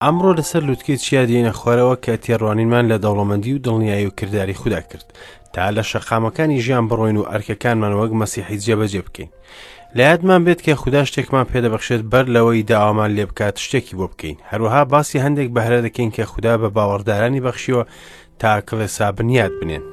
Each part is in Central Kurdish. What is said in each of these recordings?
ئەمڕۆ لەسەر لوتکەی چیا دێینە خوارەوە کە تێڕوانینمان لە دەوڵەمەندی و دڵنیایی و کرداری خودا کرد تا لە شەقامەکانی ژیان بڕۆین و ئەرکەکانمان وەک مەسیحی جێبەجێ بکەین. لە یادمان بێت کە خودا شتێکمان پێدەبەخشێت بەر لەوەی داوامان لێ بکات شتێکی بۆ بکەین. هەروەها باسی هەندێک بەهرە دەکەین کە خودا بە باوەڕدارانی بەخشیوە تا کڵێسا بنیات بنێن.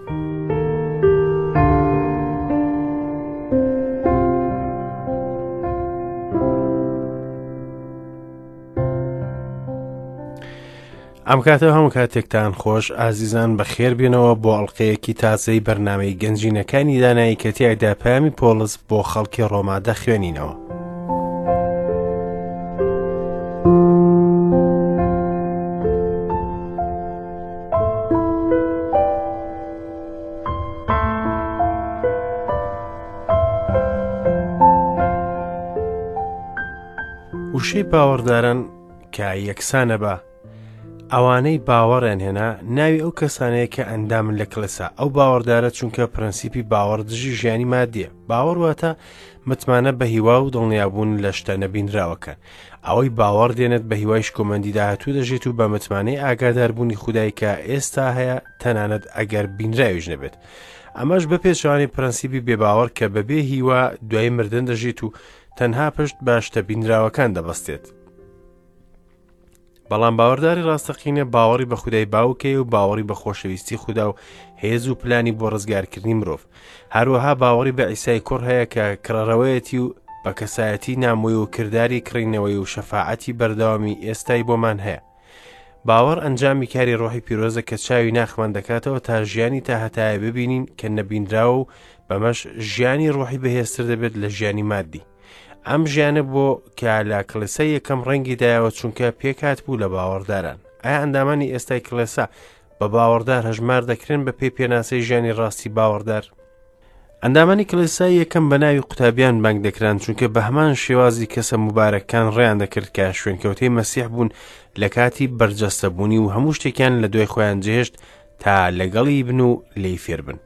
ئەم کاتە هەموو کاتێکتان خۆش ئازیزان بەخێر بێنەوە بۆ ئەڵلقەیەکی تازەی بەرنمەی گەنجینەکانی دانایی کە تیایدا پەیامی پۆڵس بۆ خەڵکی ڕۆما دەخوێنینەوە. وشەی باوەڕداران کە یەکسانە بە ئەوانەی باوەڕیان هێنا ناوی ئەو کەسانەیە کە ئەندامن لە کڵێسا ئەو باوەڕدارە چونکە پرەنسیپی باوەڕ دژی ژیانی مادیە باوەڕ واتە متمانە بە هیوا و دڵنیابوون لە شتە نەبینراوەکان ئەوەی باوەڕ دێنێت بە هیوای شکۆمەندی داهاتوو دەژێت و بە متمانەی ئاگاداربوونی خودای کە ئێستا هەیە تەنانەت ئەگەر بینراویش نەبێت ئەمەش بە پێچەوانەی پرەنسیپی بێباوەڕ کە بەبێ هیوا دوای مردن دەژیت و تەنها پشت بە شتە بینراوەکان دەبەستێت. بەڵام باوەڕداری ڕاستەقینە باوەڕی بە خودای باوکەیە و باوەڕی بە خۆشەویستی خودا و هێز و پلانی بۆ ڕزگارکردنی مرۆڤ هەروەها باوەڕی بە ئیسای کوڕ هەیە کە کڕەرەوەیەتی و بە کەسایەتی نامۆی و کرداری کڕینەوەی و شەفاعەتی بەردەوامی ئێستای بۆمان هەیە باوەڕ ئەنجامی کاری ڕۆحی پیرۆزە کە چاوی ناخمان دەکاتەوە تا ژیانی تا هەتایە ببینین کە نەبینراوە و بەمەش ژیانی ڕۆحی بەهێزتر دەبێت لە ژیانی مادی ئەم ژیانە بۆ کە لە کڵێسای یەکەم ڕەنگی دایەوە چونکە پێکات بوو لە باوەڕداران ئایا ئەندامانی ئێستای کڵێسا بە باوەڕدار هەژمار دەکرێن بە پێی پێناسەی ژیانی ڕاستی باوەڕدار ئەندامانی کڵێسای یەکەم بە ناوی قوتابیان بانگ دەکران چونکە بە هەمان شێوازی کەسە موبارەکان ڕێیان دەکرد کە شوێنکەوتەی مەسیح بوون لە کاتی بەرجەستەبوونی و هەموو شتێکیان لە دوای خۆیان جێهێشت تا لەگەڵی بن و لێی فێربن.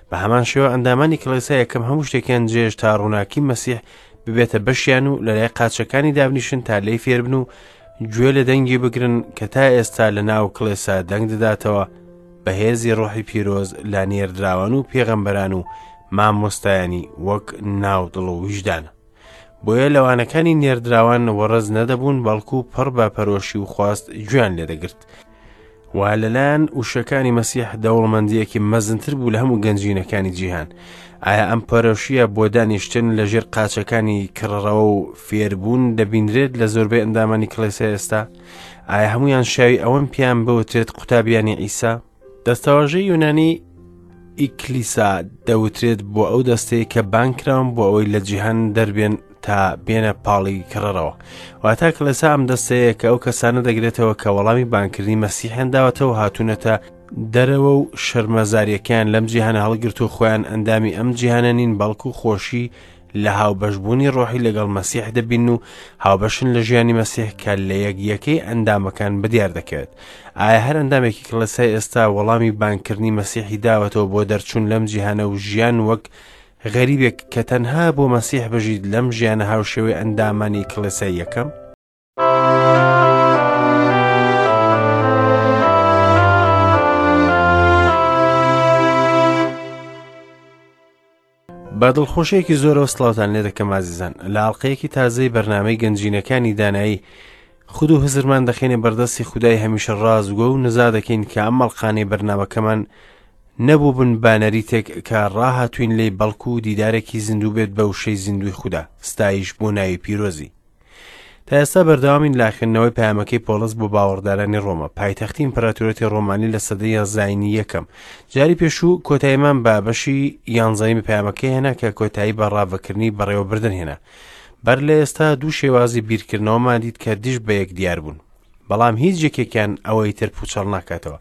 بە هەمان شێوە ئەندامانی کڵێسا یەکەم هەموو شتێکیان جێهێشت تا ڕووناکی مەسیح ببێتە بەشیان و لەلای قاچەکانی دابنیشن تا لێی فێربن و گوێ لە دەنگی بگرن کە تا ئێستا لە ناو کڵێسا دەنگ دەداتەوە بە هێزی ڕۆحی پیرۆز لە نێردراوان و پێغەمبەران و مامۆستایانی وەک ناو دڵ و ویژدانە. بۆیە لەوانەکانی نێردراوان وەڕەز نەدەبوون بەڵکو پڕ بە پەرۆشی و خواست گوێیان لێدەگرت. و لەلایەن وشەکانی مەسیح دەوڵەمەندییەکی مەزنتر بوو لە هەموو گەنجینەکانی جیهان. ئایا ئەم پەرۆشییە بۆ دانیشتن لە ژێر قاچەکانی کڕڕەوە و فێربوون دەبینرێت لە زۆربەی ئەندامانی کڵێسای ئێستا؟ ئایا هەمویان شاوی ئەوەن پێیان بوترێت قوتابیانی عیسا؟ دەستەواژەی یونانی ئیکلیسا دەوترێت بۆ ئەو دەستەیە کە بانکراون بۆ ئەوەی لە جیهان دەربێن تا بێنە پاڵی کڕەرەوە واتا کڵێسا ئەم دەستەیە کە ئەو کەسانە دەگرێتەوە کە وەڵامی بانکردنی مەسیحیان داوەتەوە هاتوونەتە دەرەوە و شەرمەزاریەکەیان لەم جیهانە هەڵگرت و خۆیان ئەندامی ئەم جیهانە نین بەڵکو خۆشی لە هاوبەشبوونی ڕۆحی لەگەڵ مەسیح دەبین و هاوبەشن لە ژیانی مەسیح کە لە یەک یەکەی ئەندامەکان بەدیار دەکەوێت. ئایا هەر ئەندامێکی کڵێسای ئێستا وەڵامی بانگکردنی مەسیحی داوەتەوە بۆ دەرچوون لەم جیهانە و ژیان وەک غەریبێک کە تەنها بۆ مەسیح بژیت لەم ژیانە هاوشێوەی ئەندامانی کڵێسای یەکەم؟ بە دڵخۆشیەکی زۆرەوە سڵاوتان لێ دەکەم ئازیزان لە ئاڵلقەیەکی تازەی بەرنامەی گەنجینەکانی دانایی خود و هزرمان دەخێنێ بەردەستی خودای هەمیشە ڕازگۆ و نزا دەکەین کە ئەم ئەڵقانەی بەرنامەکەمان نەبوو بن بە نەریتێک کە ڕاهاتوین لێی بەڵکو و دیدارێکی زیندوو بێت بە وشەی زیندوی خودا ستایش بۆ ناوی پیرۆزی تا ئێستا بەردەوامین لە خوێندنەوەی پەیامەکەی پۆڵس بۆ باوەڕدارانی ڕۆما، پایتەختی ئیمپراتۆریەتی ڕۆمانی لە سەدەی زایینی یەکەم. جاری پێشوو کۆتاییمان بە بەشی یانزەیەمی پەیامەکەی هێنا کە کۆتایی بە ڕاڤەکردنی بەڕێوەبردن هێنا. بەر لە ئێستا دوو شێوازی بیرکردنەوەمان دیت کە دژ بە یەک دیار بوون. بەڵام هیچ یەکێکیان ئەوەی تر پوچەڵ ناکاتەوە.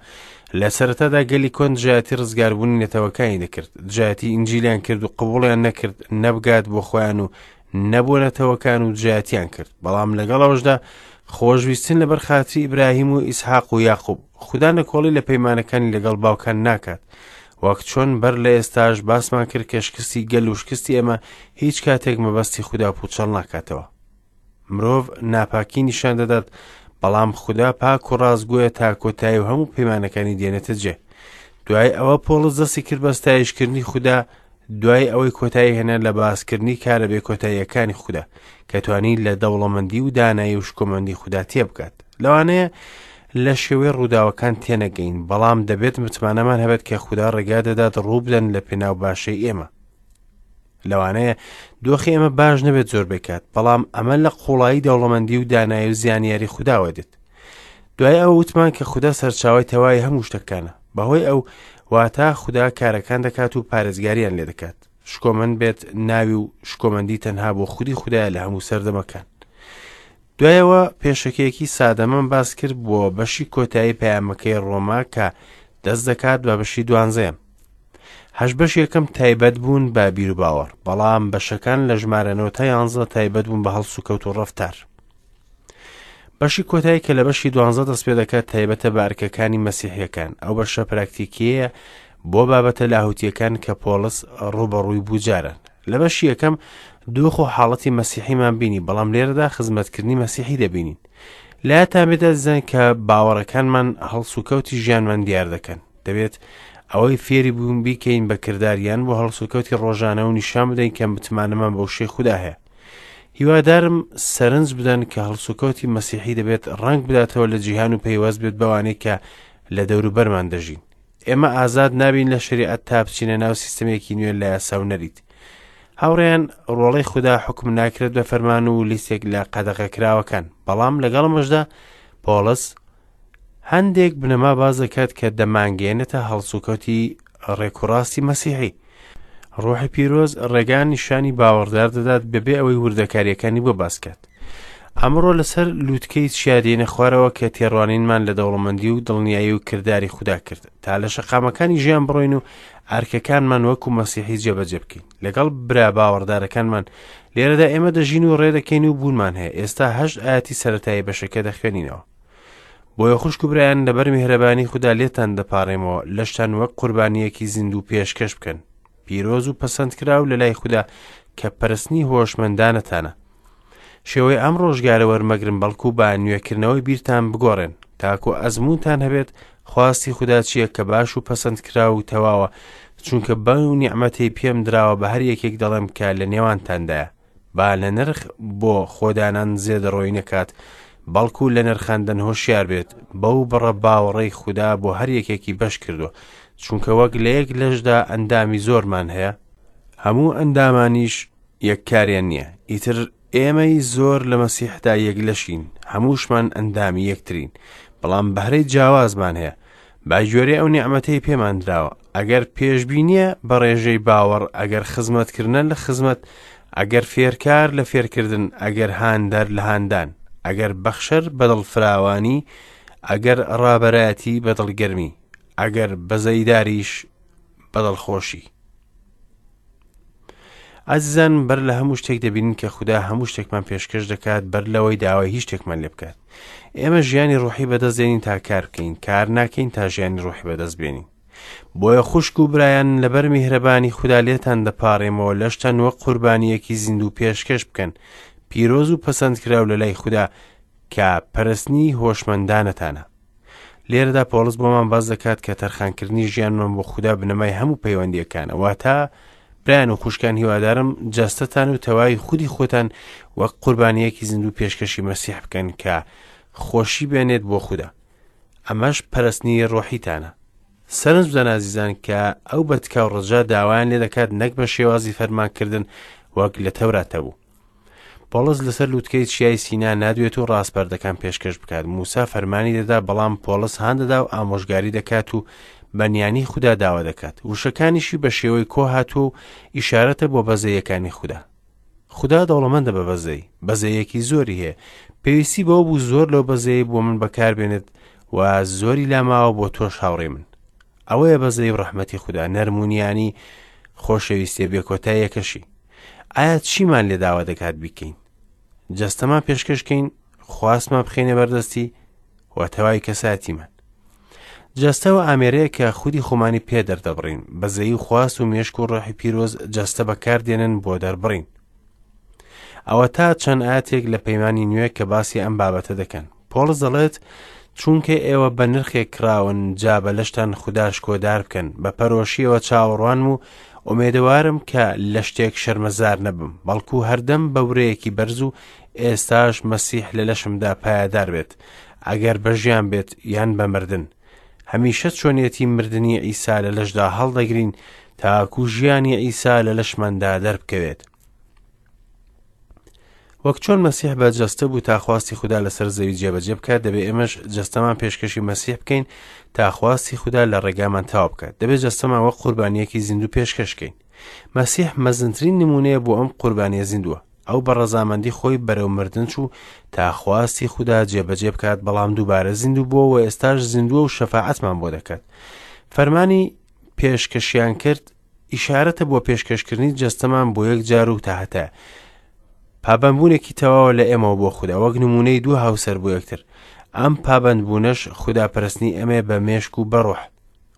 لە سەرەتادا گەلی کۆن دژایەتی ڕزگاربوونی نەتەوەکانی دەکرد، دژایەتی ئینجیلیان کرد و قبوڵیان نەکرد نەبگات بۆ خۆیان و نەبووە نەتەوەکان و دژایەتیان کرد بەڵام لەگەڵ ئەوەشدا خۆشویستن لەبەر خاتری ئیبراهیم و ئیسحاق و یاقوب خودا نکۆڵی لە پەیمانەکانی لەگەڵ باوکان ناکات وەک چۆن بەر لە ئێستاش باسمان کرد کە شکستی گەل و شکستی ئێمە هیچ کاتێک مەبەستی خودا پوچەڵ ناکاتەوە مرۆڤ ناپاکی نیشان دەدات بەڵام خودا پاک و ڕاستگۆیە تا کۆتایی و هەموو پەیمانەکانی دێنێتە جێ. دوای ئەوە پۆڵس دەستی کرد بە ستایشکردنی خودا دوای ئەوەی کۆتایی هێنا لە باسکردنی کارە بێکۆتاییەکانی خودا کە توانی لە دەوڵەمەندی و دانایی و شکۆمەندی خودا تێبگات. لەوانەیە لە شێوەی ڕووداوەکان تێنەگەین، بەڵام دەبێت متمانەمان هەبێت کە خودا ڕێگا دەدات ڕووبدەن لە پێناو باشەی ئێمە. لەوانەیە دۆخی ئێمە باش نەبێت زۆربەی کات، بەڵام ئەمە لە قوڵایی دەوڵەمەندی و دانایی و زانیاری خوداوە دێت. دوای ئەوە وتمان کە خودا سەرچاوەی تەواوی هەموو شتەکانە. بەهۆی ئەو واتا خودا کارەکان دەکات و پارێزگاریان لێ دەکات. شکۆمەند بێت ناوی و شکۆمەندی تەنها بۆ خودی خودایە لە هەموو سەردەمەکان. دوایەوە پێشەکیەکی سادەمان باس کرد بۆ بەشی کۆتایی پەیامەکەی ڕۆما کە دەست دەکات بە بەشی دوانزەیەم. هەشت بەش یەکەم تایبەت بوون بە بیروباوەڕ، بەڵام بەشەکان لە ژمارە نۆ تا یانزە تایبەت بوون بە هەڵسوکەوت و ڕەفتار. بەشی کۆتایی کە لە بەشی دوانزە دەست پێ دەکات تایبەتە بە ئەرکەکانی مەسیحیەکان. ئەو بەشە پراکتیکیەیە بۆ بابەتە لاهوتیەکان کە پۆڵس ڕووبەڕووی بوو جاران. لە بەشی یەکەم دۆخ و حاڵەتی مەسیحیمان بینی، بەڵام لێرەدا خزمەتکردنی مەسیحی دەبینین. لایەتان بێت ئازیزان کە باوەڕەکانمان هەڵسوکەوتی ژیانمان دیار دەکەن. دەبێت ئەوەی فێری بوون بیکەین بە کرداریان بۆ هەڵسوکەوتی ڕۆژانە و نیشان بدەین کە متمانەمان بە وشەی خودا هەیە. هیوادارم سەرنج بدەن کە هەڵسوکەوتی مەسیحی دەبێت ڕەنگ بداتەوە لە جیهان و پەیوەست بێت بەوانەی کە لە دەوروبەرمان دەژین. ئێمە ئازاد نابین لە شەریعەت تا بچینە ناو سیستەمێکی نوێ لە یاسا و نەریت. هاوڕێیان ڕۆڵەی خودا حوکم ناکرێت بە فەرمان و لیستێک لە قەدەغەکراوەکان، بەڵام لەگەڵ ئەمەشدا پۆڵس هەندێک بنەما باس دەکات کە دەمانگەیەنێتە هەڵسوکەوتی ڕێکوڕاستی مەسیحی. ڕۆحی پیرۆز ڕێگا نیشانی باوەڕدار دەدات بەبێ ئەوەی وردەکاریەکانی بۆ باس کات. ئەمڕۆ لەسەر لووتکەی چیا دێنە خوارەوە کە تێڕوانینمان لە دەوڵەمەندی و دڵنیایی و کرداری خودا کرد تا لە شەقامەکانی ژیان بڕۆین و ئەرکەکانمان وەکو مەسیحی جێبەجێ بکەین لەگەڵ برا باوەڕدارەکانمان. لێرەدا ئێمە دەژین و ڕێدەکەین و بوونمان هەیە. ئێستا هەشت ئاەتی سەرەتایی بەشەکە دەخوێنینەوە. بۆیە خوشک و برایان لەبەر میهرەبانی خودا لێتان دەپاڕێمەوە لەشتان وەک قوربانییەکی زیندوو پێشکەش بکەن، پیرۆز و پەسەندکراو لە لای خودا کە پەرستنی هۆشمەندانەتانە. شێوەی ئەم ڕۆژگارە وەرمەگرن بەڵکو بە نوێکردنەوەی بیرتان بگۆڕێن تاکو ئەزموونتان هەبێت خواستی خودا چییە کە باش و پەسەندکراو و تەواوە، چونکە بەو نیعمەتەی پێم دراوە بە هەر یەکێک دەڵێم کە لە نێوانتاندایە با لە نرخ بۆ خۆدانان زێدەڕۆیی نەکات، بەڵکو لە نرخاندن هۆشیار بێت، بەو بڕە باوەڕەی خودا بۆ هەر یەکێکی بەش کردووە، چونکە وەک لە یەک لەشدا ئەندامی زۆرمان هەیە، هەموو ئەندامانیش یەک کاریان نییە، ئیتر ئێمەی زۆر لە مەسیحدا یەک لەشین، هەمووشمان ئەندامی یەکترین، بەڵام بەهرەی جیاوازمان هەیە، بە گوێرەی ئەو نیعمەتەی پێمان دراوە، ئەگەر پێشبینییە بە ڕێژەی باوەڕ، ئەگەر خزمەتکردنە لە خزمەت، ئەگەر فێرکار لە فێرکردن، ئەگەر هاندەر لە هاندان، ئەگەر بەخشەر بە دڵفراوانی، ئەگەر ڕابەرایەتی بە دڵگەرمی، ئەگەر بەزەیداریش بە دڵخۆشی. ئازیزان بەر لە هەموو شتێک دەبینین کە خودا هەموو شتێکمان پێشکەش دەکات بەر لەوەی داوای هیچ شتێکمان لێ بکات. ئێمە ژیانی ڕوحی بەدەست دێنین تا کار بکەین، کار ناکەین تا ژیانی ڕوحی بەدەست بێنین. بۆیە خوشک و برایان لەبەر میهرەبانی خودا لێتان دەپاڕێمەوە لەشتان وەک قوربانییەکی زیندوو پێشکەش بکەن، پیرۆز و پەسەندکراو لە لای خودا کە پەرستنی هۆشمەندانەتانە. لێرەدا پۆڵس بۆمان باس دەکات کە تەرخانکردنی ژیانمان بۆ خودا بنەمای هەموو پەیوەندیەکانە، واتە برایان و خوشکان هیوادارم جەستەتان و تەواوی خودی خۆتان وەک قوربانیەکی زیندوو پێشکەشی مەسیح بکەن کە خۆشی بێنێت بۆ خودا، ئەمەش پەرستنی ڕۆحیتانە. سەرنج بدەن ئازیزان کە ئەو بە تکا و ڕجا داوایان لێ دەکات نەک بە شێوازی فەرمانکردن وەک لە تەورات هەبوو. پۆڵس لەسەر لووتکەی چیای سینا نادوێت و ڕاسپەردەکان پێشکەش بکات. موسا فەرمانی دەدا، بەڵام پۆڵس هان دەدا و ئامۆژگاری دەکات و بە نیانی خودا داوا دەکات. وشەکانیشی بە شێوەی کۆ هاتووە و ئیشارەتە بۆ بەزەیەکانی خودا. خودا دەوڵەمەندە بە بەزەیی، بەزەیەکی زۆری هەیە. پێویستی بەوە بوو زۆر لەو بەزەیەی بۆ من بەکاربێنێت و زۆری لاماوە بۆ تۆش هاوڕێی من. ئەوەیە بەزەیی و ڕەحمەتی خودا، نەرمونیانی خۆشەویستیە بێکۆتاییەکەشی. ئایا چیمان لێ داوا دەکات بیکەین؟ جەستەمان پێشکەشکەین، خواستمان بخەینە بەردەستی و تەواوی کەساتیمان. جەستە و ئامێرەیە کە خودی خۆمانی پێ دەردەبڕین، بەزەیی و خواست و مێشک و ڕۆحی پیرۆز جەستە بەکاردێنن بۆ دەربڕین. ئەوە تا چەند ئاتێک لە پەیمانی نوێ کە باسی ئەم بابەتە دەکەن. پۆڵس دەڵێت، چونکە ئێوە بە نرخێک کڕاون، جا بە لەشتان خودا شکۆدار بکەن. بە پەرۆشییەوە چاوەڕوانم و ئومێدەوارم کە لە شتێک شەرمەزار نەبم، بەڵکو هەردەم بە ورەیەکی بەرز و ئێستاش مەسیح لە لەشمدا پایەدار بێت، ئەگەر بە ژیان بێت یان بە مردن. هەمیشە چۆنیەتی مردنی عیسا لە لەشدا هەڵدەگرین تاکو ژیانی عیسا لە لەشماندا دەربکەوێت. وەک چۆن مەسیح بە جەستە بوو تا خواستی خودا لەسەر زەوی جێبەجێ بکات، دەبێ ئێمەش جەستەمان پێشکەشی مەسیح بکەین تا خواستی خودا لە ڕێگامان تەواو بکات. دەبێ جەستەمان وەک قوربانییەکی زیندوو پێشکەش بکەین. مەسیح مەزنترین نموونەیە بۆ ئەم قوربانییە زیندووە. ئەو بە ڕەزامەندی خۆی بەرەو مردن چوو تا خواستی خودا جێبەجێ بکات، بەڵام دووبارە زیندوو بووە و ئێستاش زیندووە و شەفاعەتمان بۆ دەکات. فەرمانی پێشکەشیان کرد ئیشارەتە بۆ پێشکەشکردنی جەستەمان بۆ یەک جار و تاهەتایە. پابەندبوونێکی تەواوە لە ئێمەوە بۆ خودا، وەک نموونەی دوو هاوسەر بۆ یەکتر. ئەم پابەندبوونەش خوداپەرستنی ئێمەیە بە مێشک و بە ڕۆح.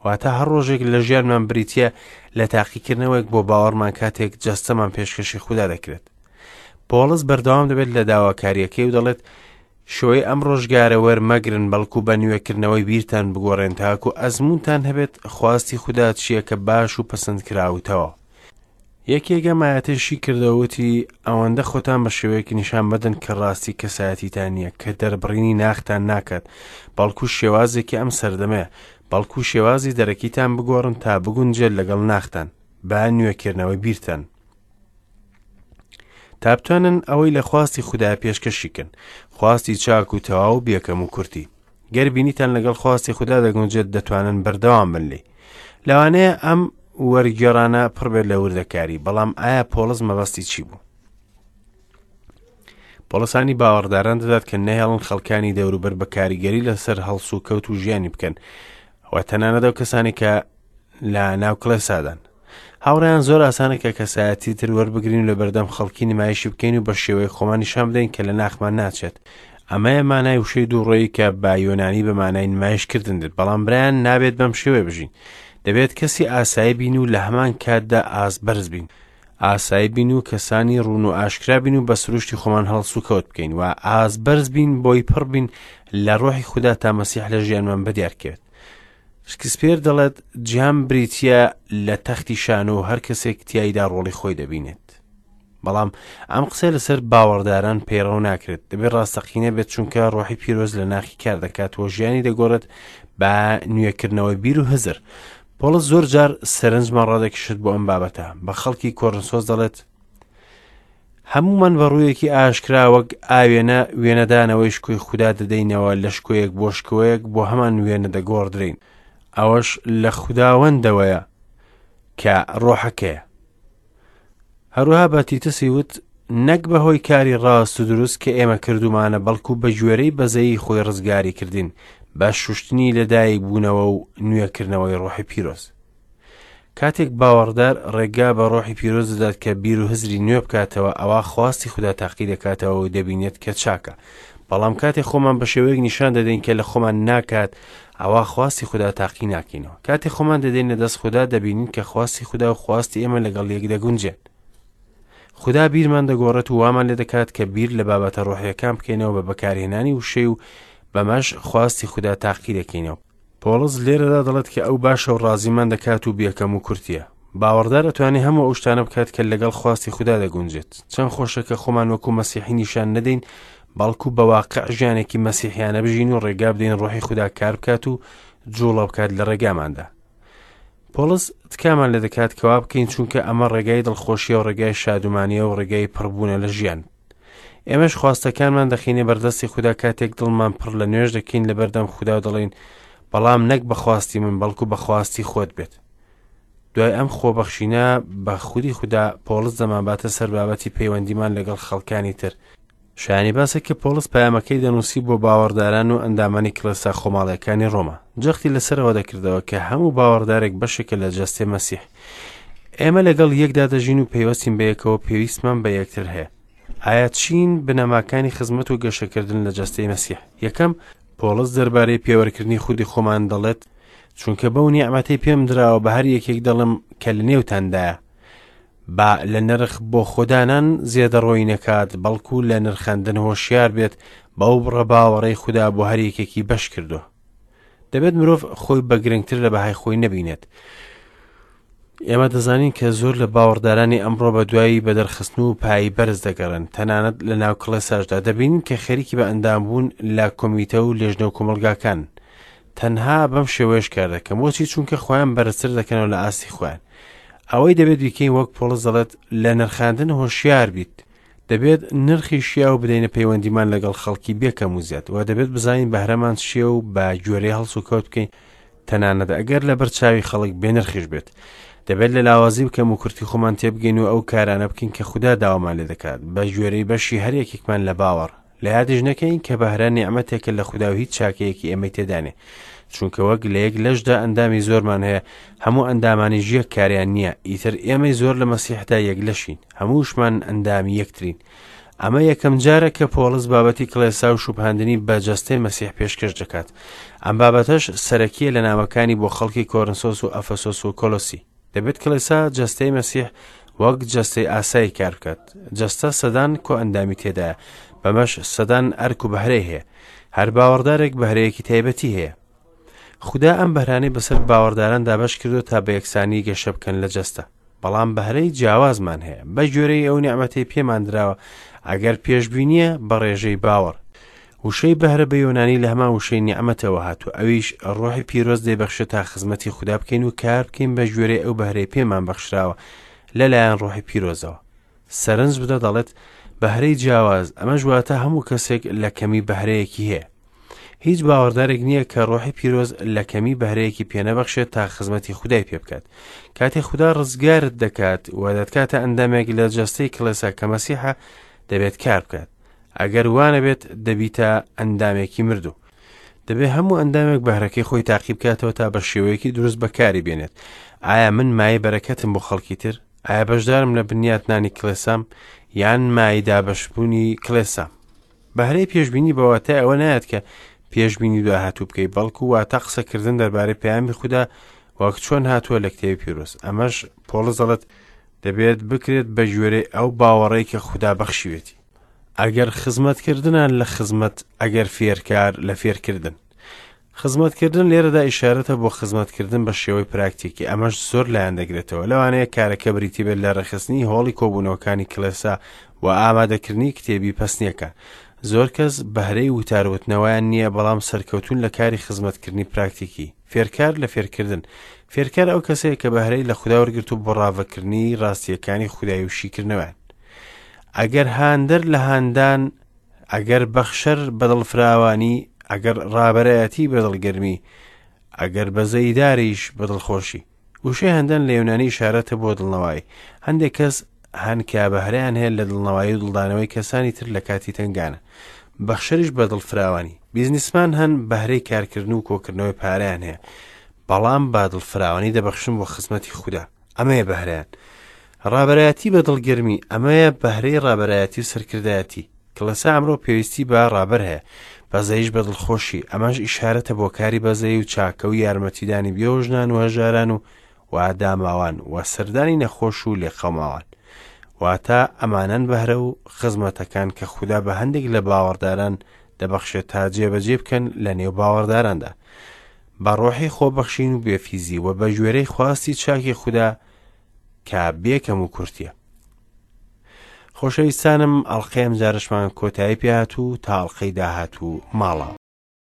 واتە هەر ڕۆژێک لە ژیانمان بریتییە لە تاقیکردنەوەیەک بۆ باوەڕمان کاتێک جەستەمان پێشکەشی خودا دەکرێت. پۆڵس بەردەوام دەبێت لە داواکارییەکەی و دەڵێت شێوەی ئەم ڕۆژگارە وەرمەگرن، بەڵکو بە نوێکردنەوەی بیرتان بگۆڕێن تاکو ئەزموونتان هەبێت خواستی خودا چییە کە باش و پەسەندکراو و تەواو. یەکێک ئەم ئایەتەی شی کردەوە وتی، ئەوەندە خۆتان بە شێوەیەک نیشان مەدەن کە ڕاستی کەسایەتیتان نییە، کە دەربڕینی ناختان ناکات، بەڵکو شێوازێکی ئەم سەردەمەیە، بەڵکو شێوازی دەرەکیتان بگۆڕن تا بگونجێت لەگەڵ ناختان، بە نوێکردنەوەی بیرتان. تا بتوانن ئەوەی لە خواستی خودایە پێشکەشی کەن، خواستی چاک و تەواو و بێکەم و کورتی. گەر بینیتان لەگەڵ خواستی خودا دەگونجێت دەتوانن بەردەوام بن لێی. لەوانەیە ئەم وەرگێڕانە پڕ بێت لە وردەکاری، بەڵام ئایا پۆڵس مەبەستی چی بوو؟ پۆڵسانی باوەڕداران دەدات کە نەهێڵن خەڵکانی دەوروبەر بە کاریگەری لەسەر هەڵسوکەوت و ژیانی بکەن و تەنانەت ئەو کەسانی کە لە ناو کڵێسادان. هاوڕێیان زۆر ئاسانە کە کەسایەتی تر وەربگرین و لەبەردەم خەڵکی نمایشی بکەین و بە شێوەی خۆمان نیشان بدەین کە لە ناخمان ناچێت. ئەمەیە مانای وشەی دووڕوویی کە بە یۆنانی بە مانای نمایشکردن دێت، بەڵام برایان نابێت بەم شێوەیە بژین. دەبێت کەسی ئاسایی بین و لە هەمان کاتدا ئاست بەرز بین. ئاسایی بین و کەسانی ڕوون و ئاشکرا بین و بە سروشتی خۆمان هەڵسوکەوت بکەین و ئاست بەرز بین بۆی پڕ بین لە ڕۆحی خودا تا مەسیح لە ژیانمان بەدیار کەوێت. شکسپیر دەڵێت جیهان بریتییە لە تەختی شانۆ و هەر کەسێک تیایدا ڕۆڵی خۆی دەبینێت. بەڵام ئەم قسەیە لەسەر باوەڕداران پەیڕەو ناکرێت، دەبێت ڕاستەقینە بێت چونکە ڕۆحی پیرۆز لە ناخی کار دەکات و ژیانی دەگۆڕێت بە نوێکردنەوەی بیر و هزر. پۆڵس زۆر جار سەرنجمان ڕادەکێشێت بۆ ئەم بابەتە، بە خەڵکی کۆرنسۆس دەڵێت هەموومان بە ڕوویەکی ئاشکرا وەک ئاوێنە وێنەدانەوەی شکۆی خودا دەدەینەوە لە شکۆیەک بۆ شکۆیەک بۆ هەمان وێنە دەگۆڕدرێین ئەوەش لە خوداوەندەوەیە کە ڕۆحەکەیە هەروەها بە تیتسی وت نەک بە هۆی کاری ڕاست و دروست کە ئێمە کردومانە بەڵکو بە گوێرەی بەزەیی خۆی ڕزگاری کردین بە شوشتنی لەدایک بوونەوە و نوێکردنەوەی ڕۆحی پیرۆز کاتێک باوەڕدار ڕێگا بە ڕۆحی پیرۆز دەدات کە بیر و هزری نوێ بکاتەوە ئەوا خواستی خودا تاقی دەکاتەوە و دەبینێت کە چاکە بەڵام کاتێک خۆمان بە شێوەیەک نیشان دەدەین کە لە خۆمان ناکات ئەوا خواستی خودا تاقی ناکەینەوە کاتێک خۆمان دەدەینە دەست خودا دەبینین کە خواستی خودا و خواستی ئێمە لەگەڵ یەک دەگونجێن خودا بیرمان دەگۆڕێت و وامان لێ دەکات کە بیر لە بابەتە ڕۆحیەکان بکەینەوە بە بەکارهێنانی وشەی و بەمەش خواستی خودا تاقی دەکەینەوە پۆڵس لێرەدا دەڵێت کە ئەو باشە و ڕازیمان دەکات و بێکەم و کورتیە. باوەڕدار ئەتوانێ هەموو ئەو شتانە بکات کە لەگەڵ خواستی خودا دەگونجێت. چەند خۆشە کە خۆمان وەکو مەسیحی نیشان نەدەین، بەڵکو بە واقع ژیانێکی مەسیحیانە بژین و ڕێگا بدەین ڕۆحی خودا کار بکات و جوڵە بکات لە ڕێگاماندا. پۆڵس تکامان لێ دەکات کەوا بکەین چونکە ئەمە ڕێگای دڵخۆشیە و ڕێگای شادومانیە و ڕێگای پڕبوونە لە ژیان. ئێمەش خواستەکانمان دەخینە بەردەستی خودا کاتێک دڵمان پڕ لە نوێژ دەکەین لە بەردەم خودا و دەڵێین بەڵام نەک بە خواستی من بەڵکو بە خواستی خۆت بێت. دوای ئەم خۆبەخشینە بە خودی خودا پۆڵس دەمانباتە سەر بابەتی پەیوەندیمان لەگەڵ خەڵکانی تر. شایانی باسە کە پۆڵس پەیامەکەی دەنووسی بۆ باوەڕداران و ئەندامانی کڵێسا خۆماڵیەکانی ڕۆما. جەختی لەسەرەوە دەکردەوە کە هەموو باوەڕدارێک بەشێکە لە جەستەی مەسیح. ئێمە لەگەڵ یەکدا دەژین و پەیوەستین بەیەکەوە پێویستمان بە یەکتر هەیە. ئایا چین بنەماکانی خزمەت و گەشەکردن لە جەستەی مەسیح؟ یەکەم، پۆڵس دەربارەی پێوەرکردنی خودی خۆمان دەڵێت، چونکە بەو نیعمەتەی پێم دراوە بە هەر یەکێک دەڵێم کە لە نێوتاندایە. با لە نرخ بۆ خۆدانان زێدەڕۆیی نەکات، بەڵکو لە نرخاندن هۆشیار بێت بەو بڕە باوەڕەی خودا بۆ هەر یەکێکی بەش کردووە. دەبێت مرۆڤ خۆی بە گرنگتر لە بەهای خۆی نەبینێت. ئێمە دەزانین کە زۆر لە باوەڕدارانی ئەمڕۆ بە دوایی بەدەرخستن و پایی بەرز دەگەڕێن، تەنانەت لە ناو کڵێساشدا دەبینین کە خەریکی بە ئەندامبوون لە کۆمیتە و لێژنە و کۆمەڵگاکان. تەنها بەم شێوەیەش کار دەکەن. بۆچی؟ چونکە خۆیان بەرزتر دەکەنەوە لە ئاستی خۆیان. ئەوەی دەبێت بیکەین وەک پۆڵس دەڵێت لە نرخاندن هۆشیار بیت. دەبێت نرخی شیاو بدەینە پەیوەندیمان لەگەڵ خەڵکی بێ کەم و زیاد و دەبێت بزانین بەهرەمان چییە و بە گوێرەی هەڵسوکەوت بکەین تەنانەت ئەگەر لەبەر چاوی خەڵک بێ نرخیش بێت. دەبێت لە لاوازی و کەموکورتی خۆمان تێبگەین و ئەو کارانە بکەین کە خودا داوامان لێ دەکات بە گوێرەی بەشی هەر یەکێکمان لە باوەڕ. لە یادیش نەکەین کە بەهرە نیعمەتێکە لە خودا و هیچ چاکەیەکی ئێمەی تێدا نیە. چونکە وەک لە یەک لەشدا ئەندامی زۆرمان هەیە، هەموو ئەندامانیش یەک کاریان نییە، ئیتر ئێمەی زۆر لە مەسیحدا یەک لەشین، هەمووشمان ئەندامی یەکترین. ئەمە یەکەم جارە کە پۆڵس بابەتی کڵێسا و شوبهاندنی بە جەستەی مەسیح پێشکەش دەکات. ئەم بابەتەش سەرەکییە لە نامەکانی بۆ خەڵکی کۆرنسۆس و ئەفەسۆس و کۆلۆسی. دەبێت کڵێسا جەستەی مەسیح وەک جەستەی ئاسایی کار بکات. جەستە سەدان کۆئەندامی تێدایە، بەمەش سەدان ئەرک و بەهرەی هەیە. هەر باوەڕدارێک بەهرەیەکی تایبەتی هەیە. خودا ئەم بەهرانەی بەسەر باوەڕداران دابەش کردووە تا بە یەکسانی گەشە بکەن لە جەستە. بەڵام بەهرەی جیاوازمان هەیە بە گوێرەی ئەو نیعمەتەی پێمان دراوە، ئەگەر پێشبینییە بە ڕێژەی باوەڕ. وشەی بەهرە بە یۆنانی لە هەمان وشەی نیعمەتەوە هاتووە، ئەویش ڕۆحی پیرۆز دەیبەخشێت تا خزمەتی خودا بکەین و کار بکەین بە گوێرەی ئەو بەهرەی پێمان بەخشراوە لەلایەن ڕۆحی پیرۆزەوە. سەرنج بدە دەڵێت بەهرەی جیاواز، ئەمەش واتە هەموو کەسێک لە کەمی بەهرەیەکی هەیە. هیچ باوەڕدارێک نییە کە ڕۆحی پیرۆز لە کەمی بەهرەیەکی پێنەبەخشێت تا خزمەتی خودای پێ بکات. کاتێ خودا ڕزگارت دەکات و دەتکاتە ئەندامێک لە جەستەی کڵێسا کە مەسیحە، دەبێت کار بکات. ئەگەر وانەبێت دەبیتە ئەندامێکی مردوو. دەبێت هەموو ئەندامێک بەهرەکەی خۆی تاقی بکاتەوە تا بە شێوەیەکی دروست بەکاری بێنێت. ئایا من مایەی بەرەکەتم بۆ خەڵکی تر؟ ئایا بەشدارم لە بنیاتنانی کڵێسام یان مایەی دابەشبوونی کڵێسام؟ بەهرەی پێشبینی بە واتای ئەوە نایەت کە پێشبینی داهاتوو بکەی، بەڵکو واتە قسەکردن دەربارەی پەیامی خودا وەک چۆن هاتووە لە کتێبی پیرۆز. ئەمەش پۆڵس دەڵێت دەبێت بکرێت بە گوێرەی ئەو باوەڕەی کە خودا بەخشیوێتی. ئەگەر خزمەتکردنە لە خزمەت، ئەگەر فێرکار لە فێرکردن. خزمەتکردن لێرەدا ئیشارەتە بۆ خزمەتکردن بە شێوەی پراکتیکی، ئەمەش زۆر لایەن دەگرێتەوە، لەوانەیە کارەکە بریتی بێت لە ڕێکخستنی هۆڵی کۆبوونەوەکانی کڵێسا و ئامادەکردنی کتێبی پەسنیەکان. زۆر کەس بەهرەی وتار وتنەوەیان نییە، بەڵام سەرکەوتوون لە کاری خزمەتکردنی پراکتیکی. فێرکار لە فێرکردن. فێرکار ئەو کەسەیە کە بەهرەی لە خودا وەرگرتوو بۆ ڕاڤەکردنی ڕاستییەکانی خودای و شیکردنەوەیان. ئەگەر هاندەر لە هاندان، ئەگەر بەخشەر بە دڵفراوانی، ئەگەر ڕابەرایەتی بە دڵگەرمی، ئەگەر بەزەیداریش بە دڵخۆشی. وشەی هەندان لە یۆنانی ئیشارەتە بۆ دڵنەوایی. هەندێک کەس هەن کە بەهرەیان هەیە لە دڵنەوایی و دڵدانەوەی کەسانی تر لە کاتی تەنگانە. بەخشەریش بە دڵفراوانی. بیزنسمان هەن بەهرەی کارکردن و کۆکردنەوەی پارەیان هەیە، بەڵام بە دڵفراوانی دەبەخشن بۆ خزمەتی خودا. ئەمەیە بەهرەیان. ڕابەرایەتی بە دڵگەرمی، ئەمەیە بەهرەی ڕابەرایەتی و سەرکردایەتی. کڵێسا ئەمڕۆ پێویستی بە ڕابەر هەیە. بەزەیش بە دڵخۆشی، ئەمەش ئیشارەتە بۆ کاری بەزەیی و چاکە و یارمەتیدانی بێوەژنان و هەژاران و و داماوان و سەردانی نەخۆش و لێقەوماوان. واتە ئەمانەن بەهرە و خزمەتەکان کە خودا بە هەندێک لە باوەڕداران دەبەخشێت تا جێبەجێ بکەن لە نێو باوەڕداراندا. بە ڕۆحی خۆبەخشین و بێفیزی و بە گوێرەی خواستی چاکی خودا کە بێ کەم و کورتیە. خۆشەویستانم ئەڵقەی ئەمجارەشمان کۆتایی پێهات و تا ئەڵقەی داهاتوو ماڵاوە.